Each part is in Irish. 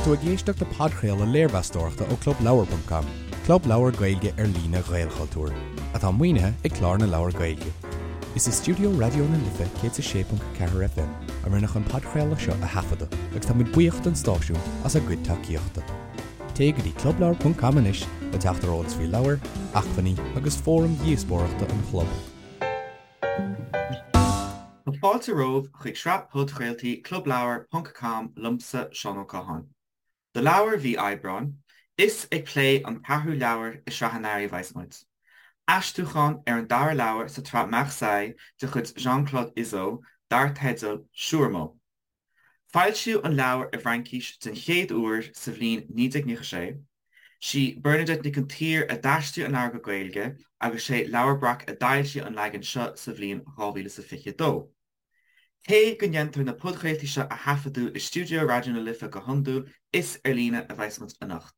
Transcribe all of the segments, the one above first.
Tá tú ag éisteacht le podchraoladh léirmheastóireachta ó ClubLeabhar.com, club leabhar Gaeilge ar líne Ghaelchultúir, atá maoinithe ag Clár na Leabhar Gaeilge. Is i stiúideo Raidió na Life 106.4 FM a rinneadh an podchraoladh seo a thaifeadadh agus tá muid buíoch don stáisiún as a gcuid tacaíochta. Téigh go dtí clubleabhar.com anois le teacht ar eolas faoi leabhair, acmhainní agus fóraim dhíospóireachta an chlub. Tá fáilte romhaibh chuig sraith podchraoltaí Clubleabhar ponc com liomsa, Seán Ó Catháin. Do leabhar mhí Aibreáin, is ag plé an ceathrú leabhar i sraith an earraigh a bheas muid. Aistriúchán ar an dara leabhar sa tsraith Marseille de chuid Jean-Claude Izzo dar teideal Siúrmó. Foilsíodh an leabhar i bhFraincís den chéad uair sa bhliain 1996. Sí Bernadette Nic an tSaoir a d'aistrigh an leabhar go Gaeilge agus sé Leabhar Breac a d'fhoilsigh an leagan seo sa bhliain 2022. Cé go ndéantar na podchraoltaí seo a thaifeadadh i stiúideo Raidió na Life go hiondúil, is ar líne a bheas muid anocht.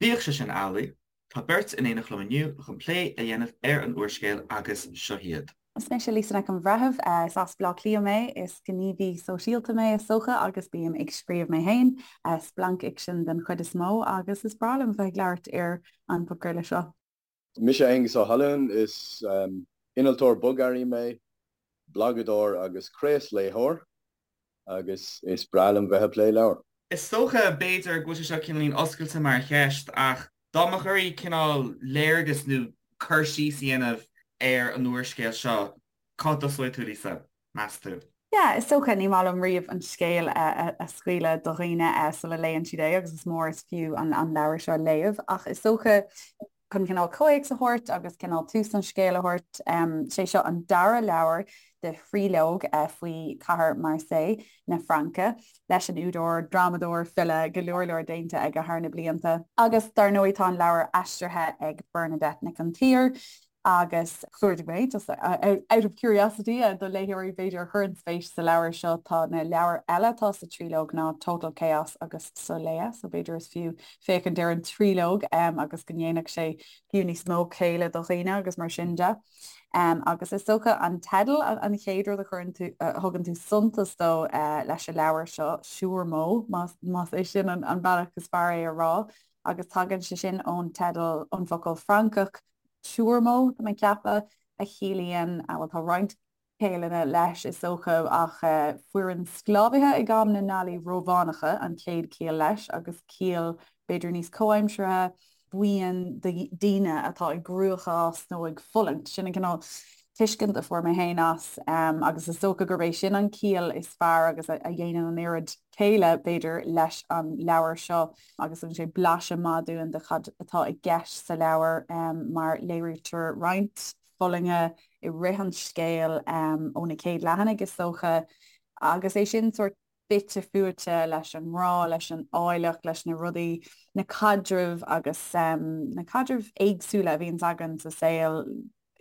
Bíodh sé sin amhlaidh, Tá beirt in éineacht liom inniu chun plé a dhéanamh ar an úrscéal agus seo hiad. Is mise Lisa Nic an Bhreithimh. Is as Baile Átha Cliath mé. Is gníomhaí sóisialta mé is dócha agus bím ag scríobh mé féin, splancfhicsean den chuid is mó agus is breá liom bheith ag labhairt ar an bpodchraoladh seo. Mise Aengus Ó hAlmhain, is innealtóir bogearraí mé, blagadóir agus craosléitheoir. agus is breá liom bheith ag plé leabhar. Is dócha, b'fhéidir, go bhfuil sé seo cineáilín oscailte mar cheist, ach dá mbeadh oraibh cineál léargas nó cur síos a dhéanamh ar an úrscéal seo, cá dtosóidh tú, Lisa, meas tú? Yeah, is dócha, ní maith liom riamh an scéal a scaoileadh do dhaoine sula léann siad é agus is mór is fiú an leabhar seo a léamh, ach is dócha, chun cineál comhthéacs a thabhairt agus cineál tús an scéil a thabhairt, sé seo an dara leabhar de thríológ faoi chathair Marseille na Fraince leis an údar, drámadóir, file, go leor leor déanta aige thar na blianta. Agus dar ndóigh tá an leabhar aistrithe ag Bernadette Nic an tSaoir agus chuardaigh mé, just out of curiosity, do léitheoirí b'fhéidir a chuireann spéis sa leabhar seo, tá na leabhair eile atá sa tríológ ná Total Chaos agus Soleá, so b'fhéidir is fiú féachaint ar an tríológ agus go ndéanfadh sé fiú níos mó céille do dhaoine agus mar sin de. Agus is dócha an teideal an chéad rud a chuireann tú, a thugann tú suntas dó leis an leabhar seo, Siúrmó, más é sin an bealach is fearr é a rá, agus tagann sé sin ón teideal, ón bhfocal Francach turmó, tá mé ag ceapadh, a chiallaíonn, bhuel tá roinnt ciallanna leis, is dócha, ach foireann sclábhaithe ag am na nGallaí Rómhánacha an chéad chiall leis, agus ciall b'fhéidir níos comhaimseartha, buíon daoine atá i gcruachás nó ag fulaingt. Sin an cineál tuiscint a fuair mé féin as, agus is dócha gurb é sin an ciall is fearr agus a dhéanann an oiread céille, b'fhéidir, leis an leabhar seo agus tugann sé blaiseadh maith dúinn de cad atá i gceist sa leabhar mar léirítear roinnt fulainge i rith an scéil ó na chéad leathanaigh is dócha agus é sin sórt fite fuaite leis an ngrá, leis an áilleacht, leis na rudaí, na caidrimh agus na caidrimh éagsúla a bhíonns againn sa saol,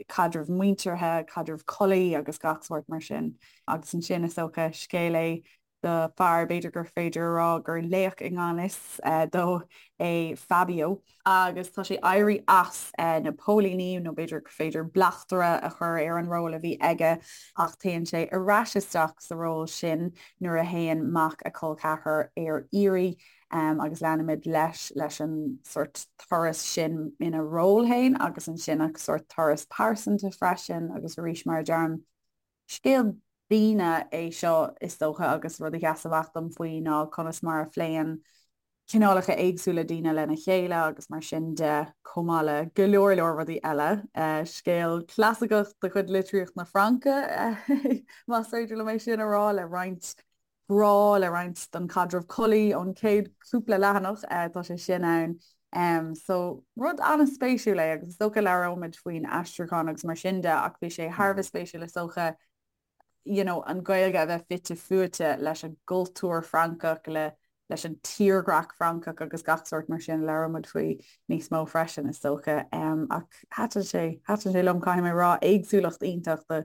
caidreamh muinteartha, caidreamh collaí agus gach sórt mar sin. Agus ansin is dócha scéal é do fear, b'fhéidir gur féidir a rá gur laoch i ngan fhios dó é Fabio, agus tá sé éirí as na póilíní, nó b'fhéidir gur féidir bleachtaire a chur ar an ról a bhí aige, ach téann sé ar ais isteach sa ról sin nuair a théann mac a chol ceathrar ar iarraidh, agus leanaimid leis leis an sórt turas sin ina ról féin agus ansin a sórt turas pearsanta freisin, agus arís mar a deirim, Scéal daoine é seo is dócha agus rud a sheas amach dom faoi ná conas mar a phléann cineálacha éagsúla daoine lena chéile agus mar sin de, chomh maith le go leor leor rudaí eile. Scéal clasaiceach de chuid litríocht na Fraince, más féidir liom é sin a rá, le roinnt grá, le roinnt den chaidreamh collaí ón chéad chúpla leathanach, tá sé sin ann. So, rud an-spéisiúil é agus is dócha labhróimid faoin aistriúchán agus mar sin de ach bhí sé thar a bheith spéisiúil is dócha you know, an Ghaeilge a bheith fite fuaite leis an gcultúr Francach, le leis an tírdhreach Francach agus gach sórt mar sin, labhróimid faoi níos mó freisin is dócha. Ach thaitin sé, thaitin sé liom, caithfidh mé a rá, éagsúlacht iontach de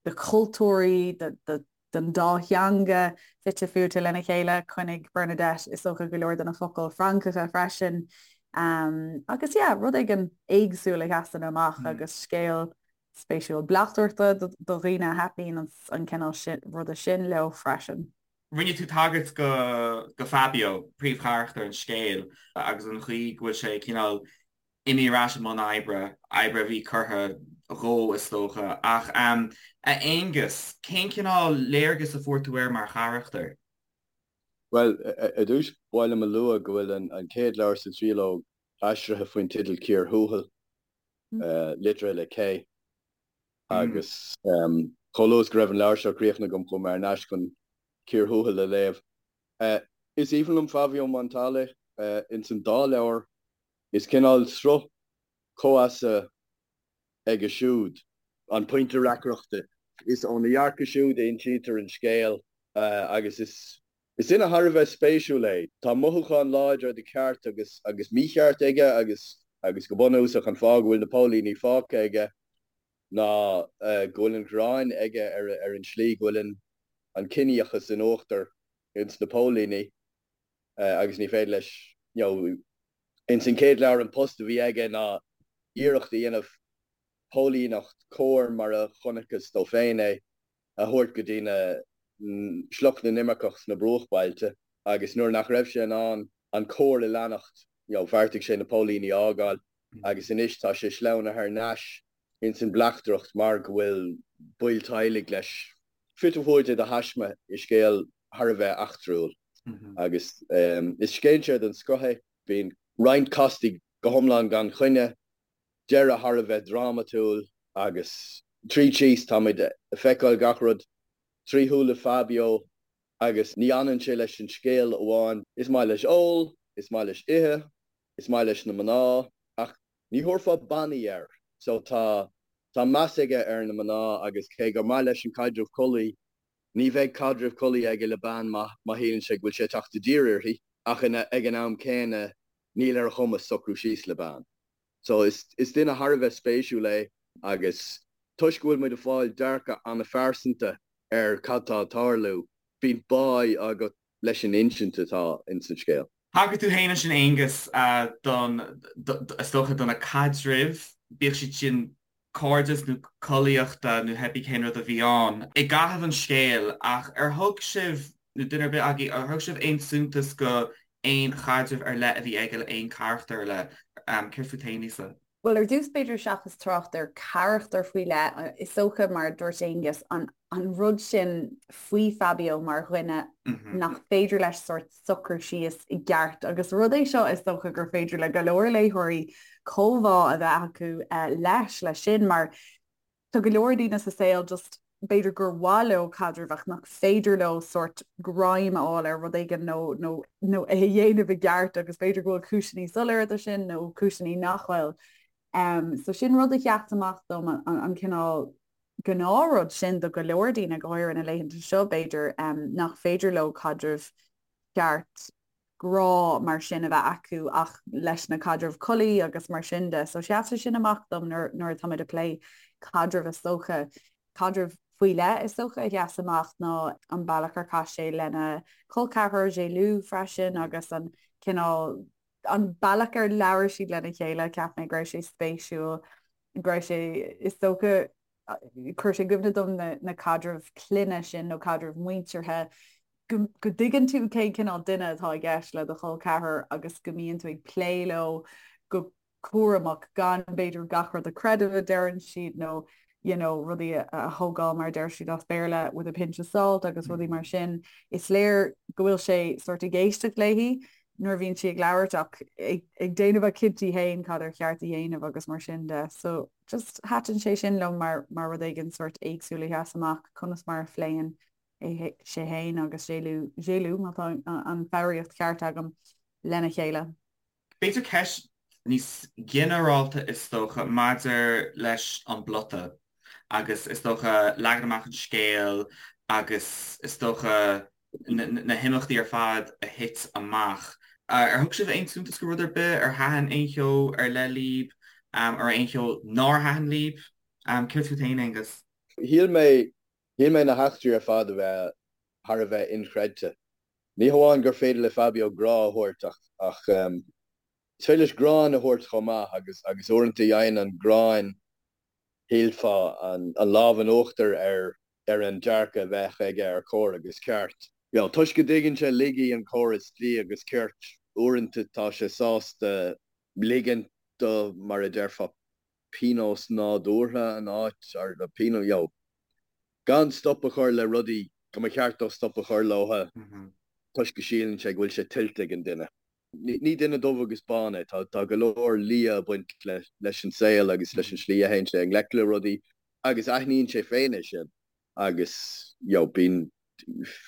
de chultúirí, de de den dá theanga fite fuaite lena chéile. Choinnigh Bernadette is dócha go leor de na focail Francacha freisin. Agus yeah, rud éigin éagsúil a sheasann amach agus scéal spéisiúil bleachtaireachta do dhaoine a thaitníonn an cineál ruda sin leo freisin. Rinne tú tagairt go go Fabio, príomhcharachtar an scéil, agus an chaoi go bhfuil sé cineál imithe ar ais i mbun oibre, oibre a bhí curtha dhó is dócha. Ach a Aonghus, cén cineál léargas a fuair tú air mar charachtar? Bhuel, ar dtús, ba mhaith liom a lua go bhfuil an chéad leabhar sa tríológ aistrithe faoin teideal Cíor Thuathail, litrithe le K. Agus chomh luath is go raibh an leabhar seo críochnaithe agam chuaigh mé thar n-ais chun Cíor Thuathail a léamh. Is aoibhinn liom Fabio Montale ins an dá leabhar. Is cineál sruth comhfheasa aige siúd. An pointe reacaireachta. Is óna dhearcadh siúd a insítear an scéal agus is Is duine thar a bheith spéisiúil é. Tá mothúcháin láidre de cheart agus agus mícheart aige agus agus go bunúsach an fáth go bhfuil na póilíní fágtha aige ná go bhfuil an ghráin aige ar ar an tslí go bhfuil an an ciníochas in uachtar ins na póilíní agus ní féidir leis you know ins an chéad leabhar an post a bhí aige ná iarracht a dhéanamh póilíneacht cóir mar a chonacthas dó féin é a thabhairt go dtí na sliocht na n-imirceach sna bruachbailte agus nuair nach raibh sé in ann an cóir a leanacht you know bheartaigh sé na póilíní a fhágáil agus anois tá sé sleamhnaithe thar n-ais ins an bleachtaireacht mar go bhfuil baill teaghlaigh leis fite fuaite de thaisme i scéal thar a bheith eachtrúil agus is scéinséir den scoth é. Bíonn roinnt castaí go hiomlán gan choinne. deireadh thar a bheith drámatúil agus tríd síos táimid ag feiceáil gach rud trí shúile Fabio agus ní fhanann sé leis an scéal amháin. Is maith leis ól, is maith leis ithe, is maith leis na mná ach ní thabharfá bannaí air so tá tá meas aige ar na mná agus cé gur maith leis an caidreamh collaí ní bheidh caidreamh collaí aige le bean má má shíleann sé go bhfuil sé ag teacht i dtír uirthi ach ag an am céanna níl ar a chumas socrú síos le bean. So is duine thar a bheith spéisiúil é agus toisc go bhfuil muid ag fáil dearcadh an-phearsanta ar cad tá ag tarlú, bíonn báidh agat leis an insint atá ins an scéal. Thagair tú féin ansin Aonghus don, is dócha, do na caidrimh, bíodh siad sin cairdeas nó collaíochta nó pé ar bith cén rud a bhí ann i gcaitheamh an scéil ach ar thug sibh, nó duine ar bith agaibh, ar thug sibh aon suntas go aon chaidreamh ar leith a bhí aige le aon charachtar ar leith? Céard fút féin, Lisa? Bhuel, ar dtús b'fhéidir seachas trácht ar charachtar faoi leith, is dócha mar a dúirt Aonghus, an an rud sin faoi Fabio mar dhuine nach féidir leis sórt socrú síos i gceart agus rud é seo is dócha gur féidir le go leor léitheoirí comhbhá a bheith acu leis, leis sin mar tá go leor daoine sa saol just b'fhéidir gur mhaith leo caidreamh ach nach féidir leo sórt greim a fháil ar rud éigin nó nó nó é a dhéanamh i gceart agus b'fhéidir go bhfuil cúiseanna soiléire do sin nó cúiseanna nach bhfuil. Um, so sin rud a sheas amach dom an, an, an cineál gnáthrud sin do go leor daoine, go háirithe na laethanta seo, b'fhéidir, nach féidir leo caidreamh ceart grá mar sin a bheith acu ach leis na caidrimh collaí agus mar sin de. So sheas sé sin amach dom nuair nuair atáimid ag plé caidrimh is dócha. Caidreamh faoi leith is dócha a sheas amach ná an bealach ar chaith sé lena chol ceathrar Gelu freisin agus an cineál an bealach ar labhair siad lena chéile, cheap mé go raibh sé spéisiúil, go raibh sé, is dócha, chuir sé i gcuimhne dom na, na caidrimh clainne sin nó caidrimh muinteartha, go, go dtuigeann tú cén cineál duine atá i gceist le do chol ceathrar agus go mbíonn tú ag plé leo go cúramach gan b'fhéidir gach rud a chreideamh a deireann siad nó you know, rudaí a thógáil mar a deir siad as Béarla with a pinch of salt agus rudaí mar sin. Is léir go bhfuil sé sort ag éisteacht léi nuair a bhíonn sí ag labhairt ach ag déanamh a chinntí féin cad ar cheart a dhéanamh agus mar sin de. So just thaitin sé sin liom mar mar rud éigin sort éagsúil a sheas amach conas mar a phléann é sé féin agus Gelu Gelu má tá an foghraíocht cheart agam lena chéile. B'fhéidir ceist níos ginearálta is dócha maidir leis an bplota agus is dócha leagan amach an scéil agus is dócha na himeachtaí ar fad a thit amach. Ar thug sibh aon suntas go rud ar bith? Ar thaitin aon cheo ar leith libh? Ar aon cheo nár thaitin libh? Céard fút féin, Aonghus? Shíl mé, shíl mé na heachtraí ar fad a bheith thar a bheith inchreidte. Ní hamháin gur féidir le Fabio grá a thabhairt ach ach is féidir leis gráin a thabhairt chomh maith agus agus uaireanta faigheann an ghráin, shílfeá, an lámh in uachtar ar ar an dearcadh a bheadh aige ar chóir agus ceart. You know, toisc go dtuigeann sé laigí an chórais dlí agus cirt, uaireanta tá sé sásta ligint do, mar a déarfá, pionós nádúrtha an áit, or pionós, you know, gan stop a chur le rudaí go mba cheart dó stop a chur leo toisc go síleann sé go bhfuil sé tuillte ag an duine. Ní duine dubh agus bán é, tá go leor liath ag baint leis an saol agus leis an slí a théann sé i ngleic le rudaí agus aithníonn sé féin é sin agus you know bíonn,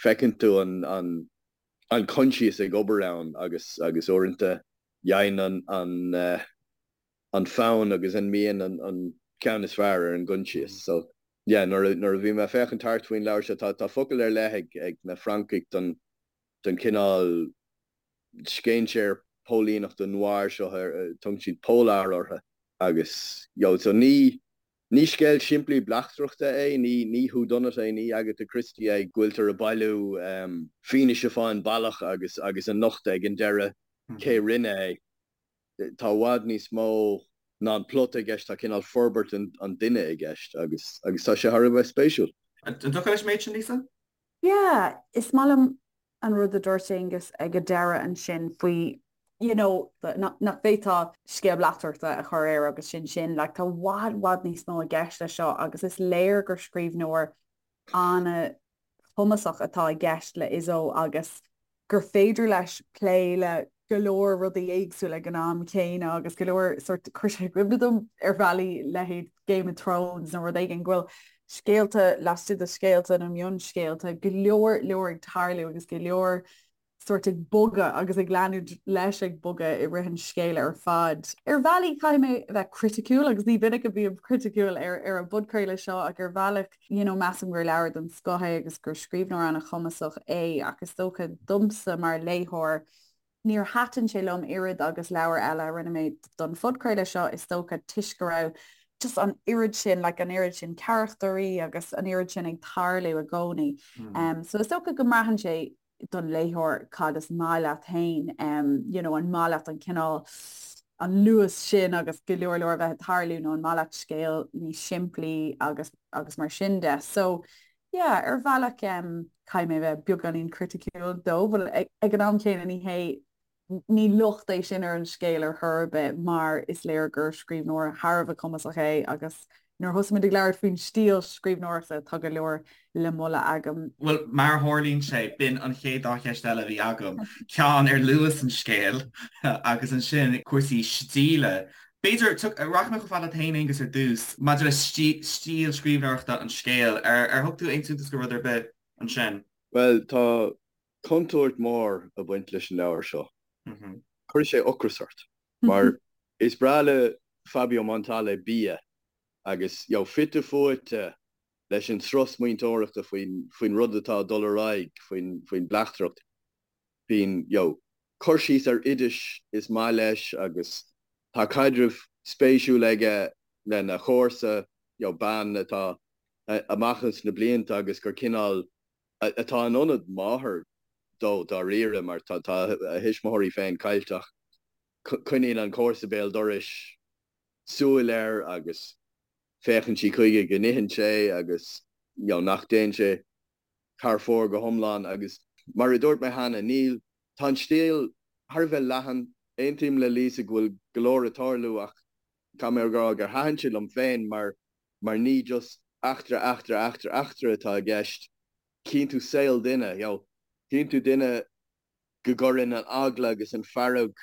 feiceann tú an, an, an coinsias ag obair ann agus, agus uaireanta faigheann an, an, an fonn agus an mian an, an ceann is fearr ar an gcoinsias. So yeah nuair a, nuair a bhí mé ag féachaint thart faoin leabhar seo tá, tá focal ar leith ag, ag na Francaigh don, don chineál scéinséir póilíneachta noir seo, tugann siad polar orthu agus you know so ní, Ní scéal simplí bleachtaireachta é, ní ní whodunit é, ní Agatha Christie é, go bhfuiltear ag bailiú fianaise fán bealach agus agus a nochtadh ag an deireadh cé rinne é. Tá i bhfad níos mó ná an plota i gceist, tá cineál forbairt an duine i gceist agus agus tá sé thar a bheith spéisiúil. An dtiocfá leis an méid sin, Lisa? Yeah, is maith liom an rud a dúirt Aonghus ag an deireadh ansin faoi you know nach bhféadfá scéal bleachtaireachta a chur air agus sin sin, like tá i bhfad, bhfad níos mó i gceist leis seo agus is léir gur scríbhneoir an-chumasach atá i gceist le Izzo agus gur féidir leis plé le go leor rudaí éagsúla ag an am céanna agus go leor sort chuir sé i gcuimhne dom ar bhealaí leithéid Game of Thrones nó rud éigin go bhfuil scéalta laistigh de scéalta nó mionscéalta, go leor leor ag tarlú agus go leor sort ag bogadh agus ag leanúint leis ag bogadh i rith an scéil ar fad. Ar bhealaí caithfidh mé a bheith criticiúil agus ní minic a bhím criticiúil ar ar an bpodchraoladh seo ach ar bhealach you know measaim gur leabhar den scoth é agus gur scríbhneoir an-chumasach é ach is dócha domsa mar léitheoir Níor thaitin sé liom oiread agus leabhair eile a rinne mé don phodchraoladh seo, is dócha, toisc go raibh just an oiread sin, like an oiread sin carachtarí agus an oiread sin ag tarlú i gcónaí. Um, so is dócha go mbraitheann sé don léitheoir cad is maith leat féin, um, you know, an maith leat an cineál an luas sin agus go leor leor a bheith ag tarlú nó an maith leat scéal níos simplí agus agus mar sin de. So Yeah, ar bhealach caithfidh mé a bheith beagáinín criticiúil dó, but ag an am céanna ní hé, ní locht é sin ar an scéal ar chor ar bith mar is léir gur scríbhneoir thar a bheith cumasach é agus nuair a thosaigh muid ag labhairt faoin stíl scríbhneoireachta tá go leor le moladh agam. Bhuel, mar a tharlaíonn sé, b'in an chéad dá cheist eile a bhí agam, ceann ar luas an scéil agus ansin cúrsaí stíle. B'fhéidir, rachaidh mé chomh fada leat féin, Aonghus, ar dtús, maidir le stíl scríbhneoireachta an scéil. Ar thug tú aon suntas do rud ar bith ansin? Bhuel, tá contúirt mhór ag baint leis an leabhar seo. Cuirfidh sé ocras ort. Mar is breá le Fabio Montale bia agus, you know, fite fuaite leis an sruth smaointeoireachta faoin rud atá ag dul ar aghaidh, faoin bleachtaireacht. Bíonn, you know, cur síos ar oidis is maith leis agus tá caidreamh spéisiúil aige lena chomharsa, you know, bean atá amach ins na blianta agus gur cineál, atá in ionad máthar dó dáiríre mar tá a thuismitheoirí féin caillte ach coinníonn an comharsa béal dorais súil air agus féachann sí chuige go n-itheann sé agus, you know, nach dtéann sé thar fóir go hiomlán agus mar a dúirt mé cheana, níl, tá an stíl thar a bheith leathan. Aontaím le Lisa go bhfuil go leor ag tarlú ach caithfidh mé a rá gur thaitin sé liom féin mar mar ní just eachtra, eachtra, eachtra, eachtra atá i gceist. Chíonn tú saol duine, you know, chíonn tú duine go gcuireann an eagla agus an fearg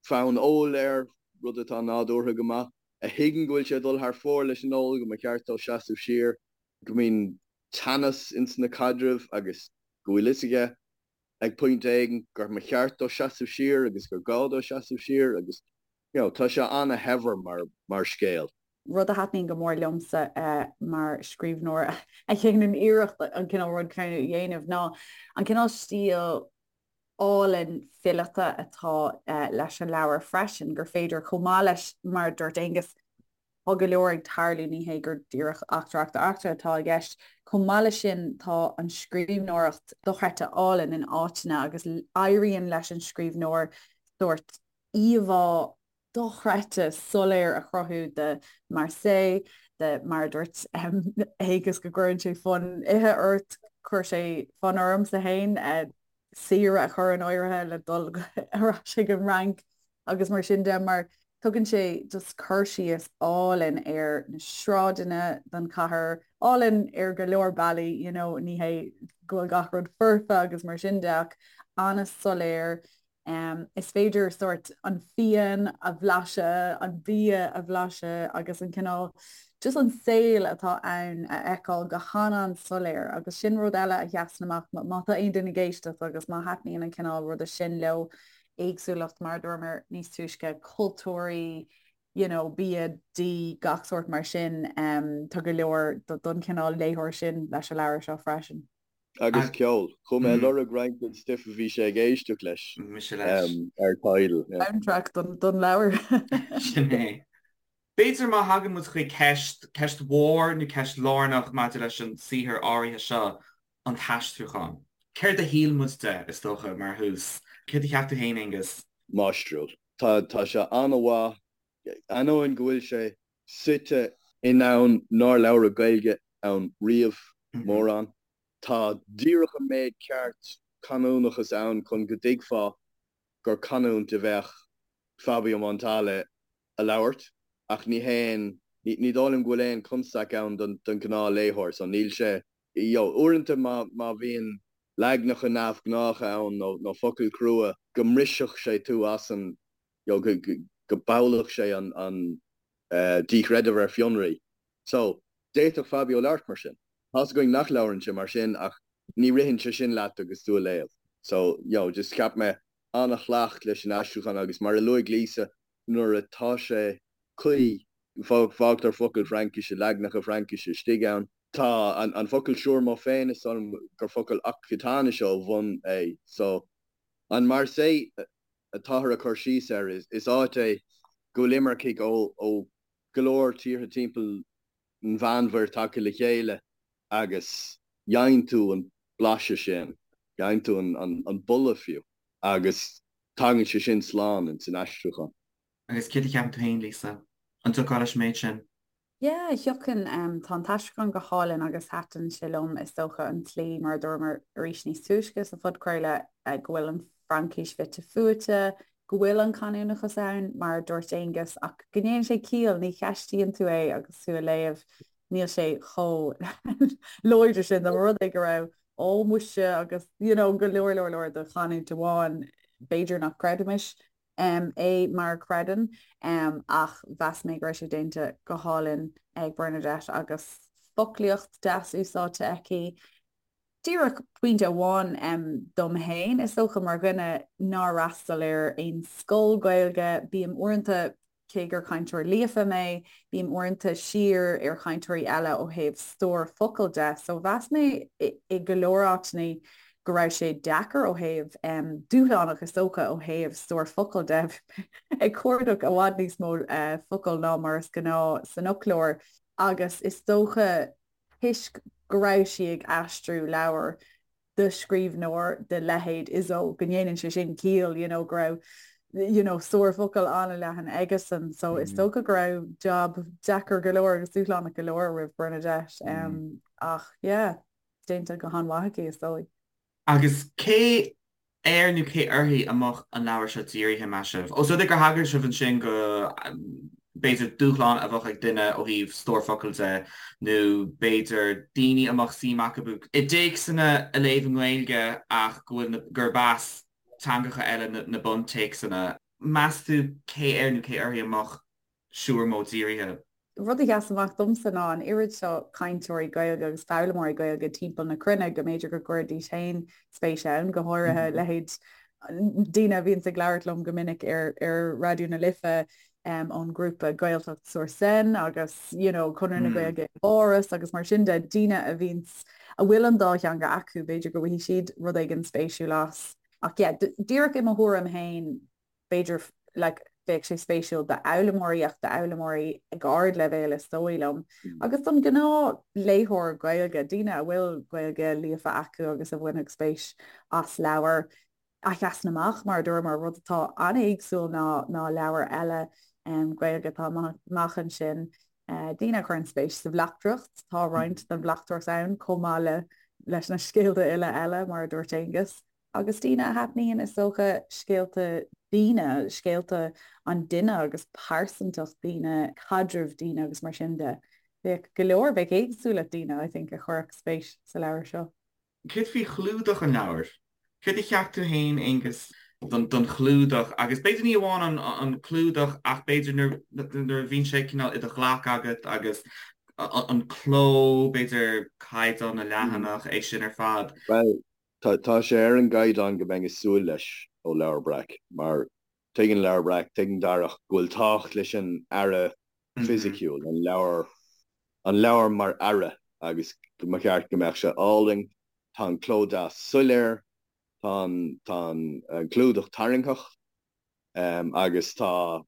fonn óil air, rud atá nádúrtha go maith, a thuigeann go bhfuil sé ag dul thar fóir leis an ól, go mba cheart dó seasamh siar, go mbíonn teannas ins na caidrimh agus go bhfuil fhios aige ag pointe éigin gur mba cheart dó seasamh siar agus gur gá dó seasamh siar agus you know tá sé ana-shaibhir mar mar scéal. Rud a thaitníonn go mór liomsa mar scríbhneoir a dhéanann iarracht an cineál rud céanna a dhéanamh ná an cineál stíl álainn fileata atá leis an leabhar freisin, gur féidir chomh maith leis mar a dúirt Aonghus, Tá go leor ag tarlú, ní hé gur díreach eachtra, eachtra, eachtra atá i gceist. Chomh maith leis sin, tá an scríbhneoireacht dochreidte álainn in áiteanna agus éiríonn leis an scríbhneoir sórt íomhá dochreidte soiléir a chruthú de Marseille, de mar a dúirt Aonghus go gcuireann sé fonn ithe ort. Chuir sé fonn ormsa féin saoire a chur in áirithe le dul ar ais ag an Fhrainc agus mar sin de mar tugann sé just cur síos álainn ar na sráideanna den chathair, álainn ar go leor bealaí, you know, ní hé go bhfuil gach rud foirfe agus mar sin de ach an-soiléir Is féidir sórt an fíon a bhlaiseadh, an bia a bhlaiseadh agus an cineál just an saol atá ann a fheiceáil go han-an-soiléir agus sin rud eile a sheasann amach má tá aon duine ag éisteacht agus má thaitníonn an cineál ruda sin leo, éagsúlacht mar a dúramar níos túisce, cultúirí, you know, bia, dí, gach sórt mar sin, tá go leor don chineál léitheoir sin leis an leabhar seo freisin. Agus ceol. Chuaigh mé ag lorg roinnt den stuif a bhí sé ag éisteacht leis ar Tidal. Soundtrack don leabhar. Sin é. B'fhéidir má thagann muid chuig ceist, ceist mhór nó ceist lárnach maidir leis an saothar áirithe seo, an t-aistriúchán. Céard a shíl muid de, is dócha, mar thús? Céard a cheap tú féin, Aonghus? Máistriúil. Tá, tá sé an-mhaith, ainneoin go bhfuil sé suite i ndomhan nár labhradh Gaeilge ann riamh, mórán. Tá díreach an méid ceart canúnachas ann chun go dtuigfeá gur canúint a bheadh Fabio Montale a labhairt, ach ní haon, ní dóigh liom go bhfuil aon chonstaic ann don ghnáthléitheoir, so níl sé, you know, uaireanta má bhíonn leagnacha neamhghnácha ann nó focail chrua, go mbrisfeadh sé tú as an, you know, go bpollfadh sé an díchreideamh ar fionraí. So, d'fhéadfadh Fabio labhairt mar sin. Tá's againn nach labhrann sé mar sin ach ní ritheann sé sin leat agus tú a léamh. So, you know, just cheap mé an-shlacht leis an aistriúchán agus mar a luaigh Lisa, nuair atá sé cuí, fágtar focail Fraincise, leagnacha Fraincise istigh ann. Tá an focal siúrmó féin, is dóigh liom gur focal Ocsatáinise ó bhun é. So, an Marseille atáthar ag cur síos air, is áit é go bhfuil imircigh ó go leor tíortha timpeall an Mheánmhuir tagtha le chéile agus gheibheann tú an blaiseadh sin, gheibheann tú an boladh fiú agus tagann sé sin slán ins an aistriúchán. Agus céard a cheapann tú féin, Lisa? An dtiocfá leis an méid sin? Yeah, thiocfainn. Tá an t-aistriúchán go hálainn agus thaitin sé liom, is dócha, an tslí, mar a dúramar arís níos túisce sa phodchraoladh, go bhfuil an Fraincis fite fuaite, go bhfuil an canúnachas ann, mar a dúirt Aonghus, ach go ndéanann sé ciall, ní cheistíonn tú é agus tú a léamh, níl sé chomh láidir sin, dá mba rud é go raibh ó muise agus you know go leor leor leor de chanúint amháin, b'fhéidir nach gcreidfimis é mar a chreideann ach mheas mé go raibh sé déanta go hálainn ag Bernadette agus foclaíocht deas úsáidte aici. Díreach pointe amháin dom féin, is dócha mar dhuine nár fhreastail ar aon scoil Gaeilge, bím uaireanta, cé gur cainteoir líofa mé, bím uaireanta siar ar chainteoirí eile ó thaobh stór focal de, so mheas mé i go leor áiteanna go raibh sé deacair ó thaobh, dúshlánach is dócha ó thaobh stór focal de, ag cuardach i bhfad níos mó focal ná mar is gnáth san fhoclóir agus is dócha toisc go raibh sí ag aistriú leabhar de scríbhneoir de leithéid Izzo, go ndéanann sé sin ciall, you know, go raibh you know, stór focal an-leathan aigesan. So is dócha go raibh job deacair go leor agus dúshlánach go leor roimh Bernadette. Um, ach yeah, déanta go han-mhaith aici is dóigh. Agus cé air nó cé uirthi a mbeadh an leabhar seo dírithe, meas sibh? Ós rud é gur thagair sibh ansin go, b'fhéidir, dúshlán a bheadh ag duine ó thaobh stór focal de, nó b'fhéidir daoine a mbeadh suim acu i dtéacsanna a léamh i nGaeilge ach go bhfuil na, gurb as teangacha eile na buntéacsanna. Meas tú cé air nó cé uirthi a mbeadh Siúrmó dírithe. Rud a sheas amach domsa ná an oiread seo cainteoirí Gaeilge agus foghlaimeoirí Gaeilge timpeall na cruinne go mb'fhéidir go gcuirfidís féin spéis ann, go háirithe leithéid daoine a bhíonns ag labhairt liom go minic ar ar Raidió na Life ón ngrúpa Gaeltacht sur Seine agus you know Conradh na Gaeilge i bPáras agus mar sin de, daoine a bhíonns a bhfuil an dá theanga acu, b'fhéidir go bhfaighidh siad rud éigin spéisiúil as. Ach yeah, díreach i mo thuairim féin, b'fhéidir like bheadh sé spéisiúil d'fhoghlaimeoirí ach d'fhoghlaimeoirí ag ardleibhéal is dóigh liom agus don ghnáthléitheoir Gaeilge, daoine a bhfuil Gaeilge líofa acu agus a bhainfeadh spéis as leabhar a sheasann amach mar a dúramar, rud atá an-éagsúil ná ná leabhair eile Gaeilge atá amach ansin. Daoine a chuireann spéis sa bhleachtaireacht, tá roinnt den bhleachtaireacht ann chomh maith le. leis na scéalta uile eile, mar a dúirt Aonghus. Agus daoine a thaitníonn, is dócha, scéalta daoine, scéalta an duine agus pearsantacht daoine, caidreamh daoine agus mar sin de. Bheadh go leor, bheadh éagsúlacht daoine, I think, a chuirfeadh spéis sa leabhar seo. Céard faoi chlúdach an leabhair? Céard a cheap tú féin, Aonghus, don chlúdach? Agus b'fhéidir ní amháin an clúdach ach b'fhéidir nuair a bhíonn sé cineál i do ghlac agat agus an cló, b'fhéidir caighdeán na leathanach, é sin ar fad. Bhuel, tá sé ar an gcaighdeán go mbeinn ag súil leis ó Leabhar Breac mar tuigeann Leabhar Breac, tuigeann Darach go bhfuil tábhacht leis an earra fisiciúil, an leabhar, an leabhar mar earra agus go mba cheart go mbeadh sé álainn. Tá an cló deas soiléir, tá an, tá an clúdach tarraingteach agus tá,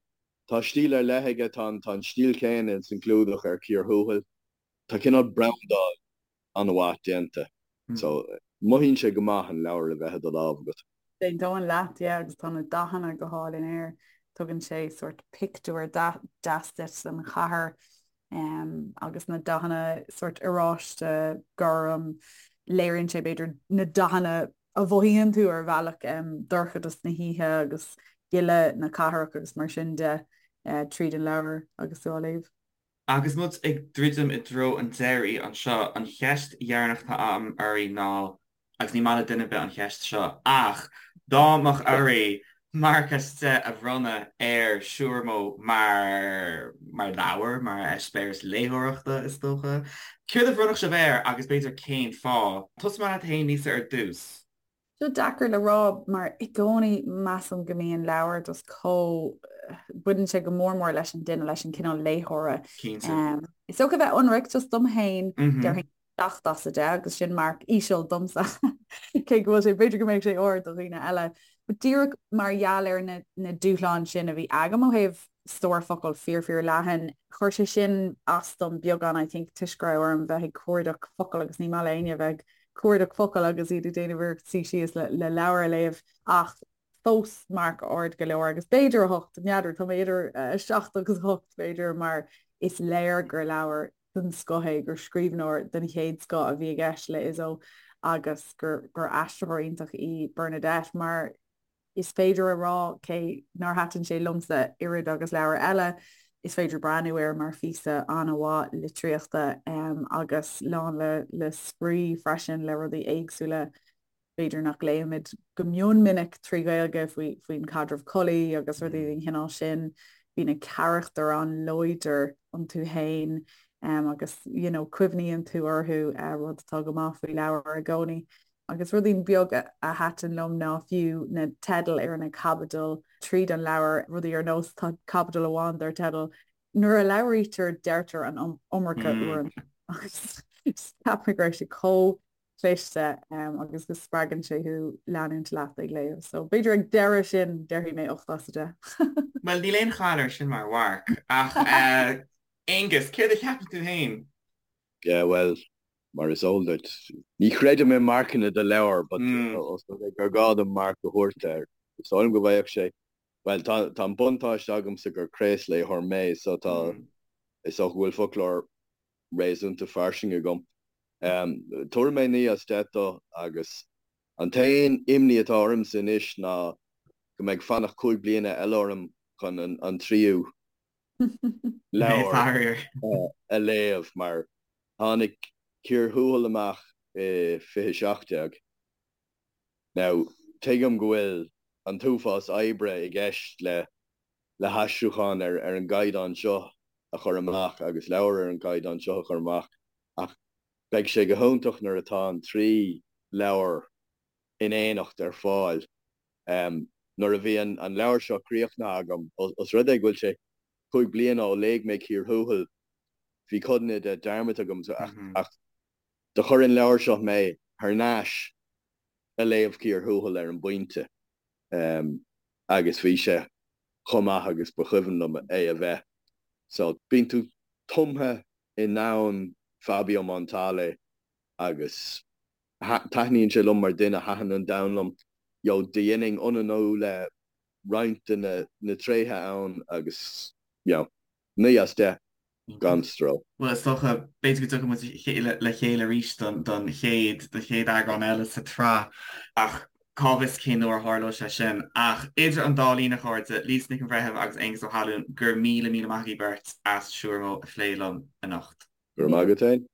tá stíl ar leith aige, tá an, tá an stíl chéanna ins an gclúdach ar Cíor Thuathail. Tá cineál brandáil an-mhaith déanta so mothaíonn sé go maith an leabhar a bheith i do lámh agat. D'aontóinn leat, yeah, agus tá na dathanna go hálainn air. Tugann sé sórt pictiúr deas duit den chathair agus na dathanna sórt oráiste, gorm, léiríonn sé b'fhéidir na dathanna a mhothaíonn tú ar bhealach, dorchadas na hoíche agus gile na cathrach agus mar sin de tríd an leabhar agus tú á léamh. Agus muid ag druidim i dtreo an deiridh anseo, an cheist dheireanach atá agam oraibh ná, agus ní maith le duine ar bith an cheist seo, ach dá mbeadh oraibh marc as 10 a bhronnadh ar Siúrmó mar, mar leabhar, mar eispéireas léitheoireachta, is dócha, céard a bhronnfadh sibh air agus b'fhéidir cén fáth? Tosóidh mé leat féin, Lisa, ar dtús. Seo deacair le rá mar i gcónaí measaim go mbíonn leabhar just chomh, baineann sé go mór mór leis an duine, leis an cineál léitheora. Cinnte. Is dócha bheith ionraic just dom féin, déarfainn 7 as 10 agus sin marc íseal domsa cé go bhfuil sé, b'fhéidir go mbeadh sé ard do dhaoine eile. But díreach mar gheall ar na, na dúshláin sin a bhí agam ó thaobh stór focal fíor fíor leathan, chuir sé sin as dom beagán I think toisc go raibh orm bheith ag cuardach focal agus ní maith le éinne bheith ag cuardach focal agus iad ag déanamh iarracht suí síos le leabhar a léamh ach fós marc ard go leor agus b'fhéidir 8, n'fheadar, tá mé idir 7 agus 8 b'fhéidir mar is léir gur leabhar den scoth é, gur scríbhneoir den chéad scoth a bhí i gceist le Izzo agus gur gur aistritheoir iontach í Bernadette mar Is féidir a rá, cé nár thaitin sé liomsa oiread agus leabhair eile, is féidir breathnú air mar phíosa an-mhaith litríochta agus lán le le spraoi freisin, le rudaí éagsúla b'fhéidir nach léimid go mion minic trí Ghaeilge faoi faoin chaidreamh collaí agus rudaí den chineál sin. Bhí na carachtair an-láidir iontu féin agus you know cuimhníonn tú orthu, rud atá go maith faoi leabhar i gcónaí. Agus rudaí beag a thaitin liom ná fiú na teidil ar na caibidil tríd an leabhar, rudaí ar nós tá caibidil amháin dar teideal 'Nuair a labhraítear deirtear an iomarca uaireanta' agus cheap mé go raibh sé chomh cliste agus go spreagann sé thú leanúint leat ag léamh. So b'fhéidir ag deireadh sin déarfaidh mé 8 as 10. Bhuel níl aon chaill air sin mar mharc ach Aonghus, céard a cheapann tú féin? Yeah bhuel Mar is eol duit, ní chreidim i marcanna do leabhar but os rud é gur gá dom marc a thabhairt air, is dóigh liom go bhfaigheadh sé, bhuel, tá tá an buntáiste agamsa gur craosléitheoir mé so tá, is dócha go bhfuil foclóir réasúnta fairsing agam. Tabharfaidh mé 9 as 10 dó agus an t-aon imní atá ormsa anois ná go mbeidh fanacht 5 bliana eile orm chun an tríú leabhar a léamh mar Tháinig Cíor Thuathail amach i 2017. Now, tuigim go bhfuil an t-uafás oibre i gceist le le haistriúchán ar ar an gcaighdeán seo a chur amach agus leabhar ar an gcaighdeán seo a chur amach ach beidh sé go hiontach nuair atá an trí leabhar in éineacht ar fáil. Nuair a bhí an an leabhar seo críochnaithe agam, os rud é go bhfuil sé 5 bliana ó léigh mé Cíor Thuathail, bhí codanna de dearmadta agam ach do chuir an leabhar seo mé thar n-ais a léamh Cíor Thuathail ar an bpointe agus bhí sé chomh maith agus ba chuimhin liom é a bheith. So bíonn tú tumtha i ndomhan Fabio Montale agus taitníonn sé liom mar duine, thaitin an domhan liom. You know, do dhéanfainn ionannú le roinnt de na tréithe ann agus, you know, 9 as 10. Gan stró. Bhuel, is dócha, b'fhéidir go dtiocfaidh muid le chéile arís don chéad, don chéad eagrán eile sa tsraith, ach cá bhfios cén uair a tharlóidh sé sin. Ach idir an dá linn, a chairde, Lisa Nic an Bhreithimh agus Aengus Ó hAlmhain, go raibh míle, míle maith agaibh beirt as Siúramó a phlé liom anocht. Go raibh maith agat féin.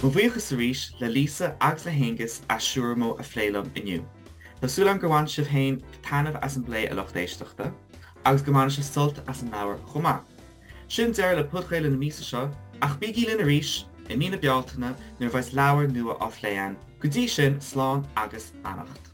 Mo bhuíochas arís le Lisa agus le hAengus as Siúramó a phlé liom inniu. Tá súil agam gur bhain sibh féin taitneamh as an bplé a lucht éisteachta, agus go mbainfidh sibh sult as an leabhar chomh maith. Sin deireadh le podchraoladh na míosa seo, ach bígí linn arís i mí na Bealtaine nuair a bheas leabhar nua á phlé againn. Go dtí sin, slán agus beannacht.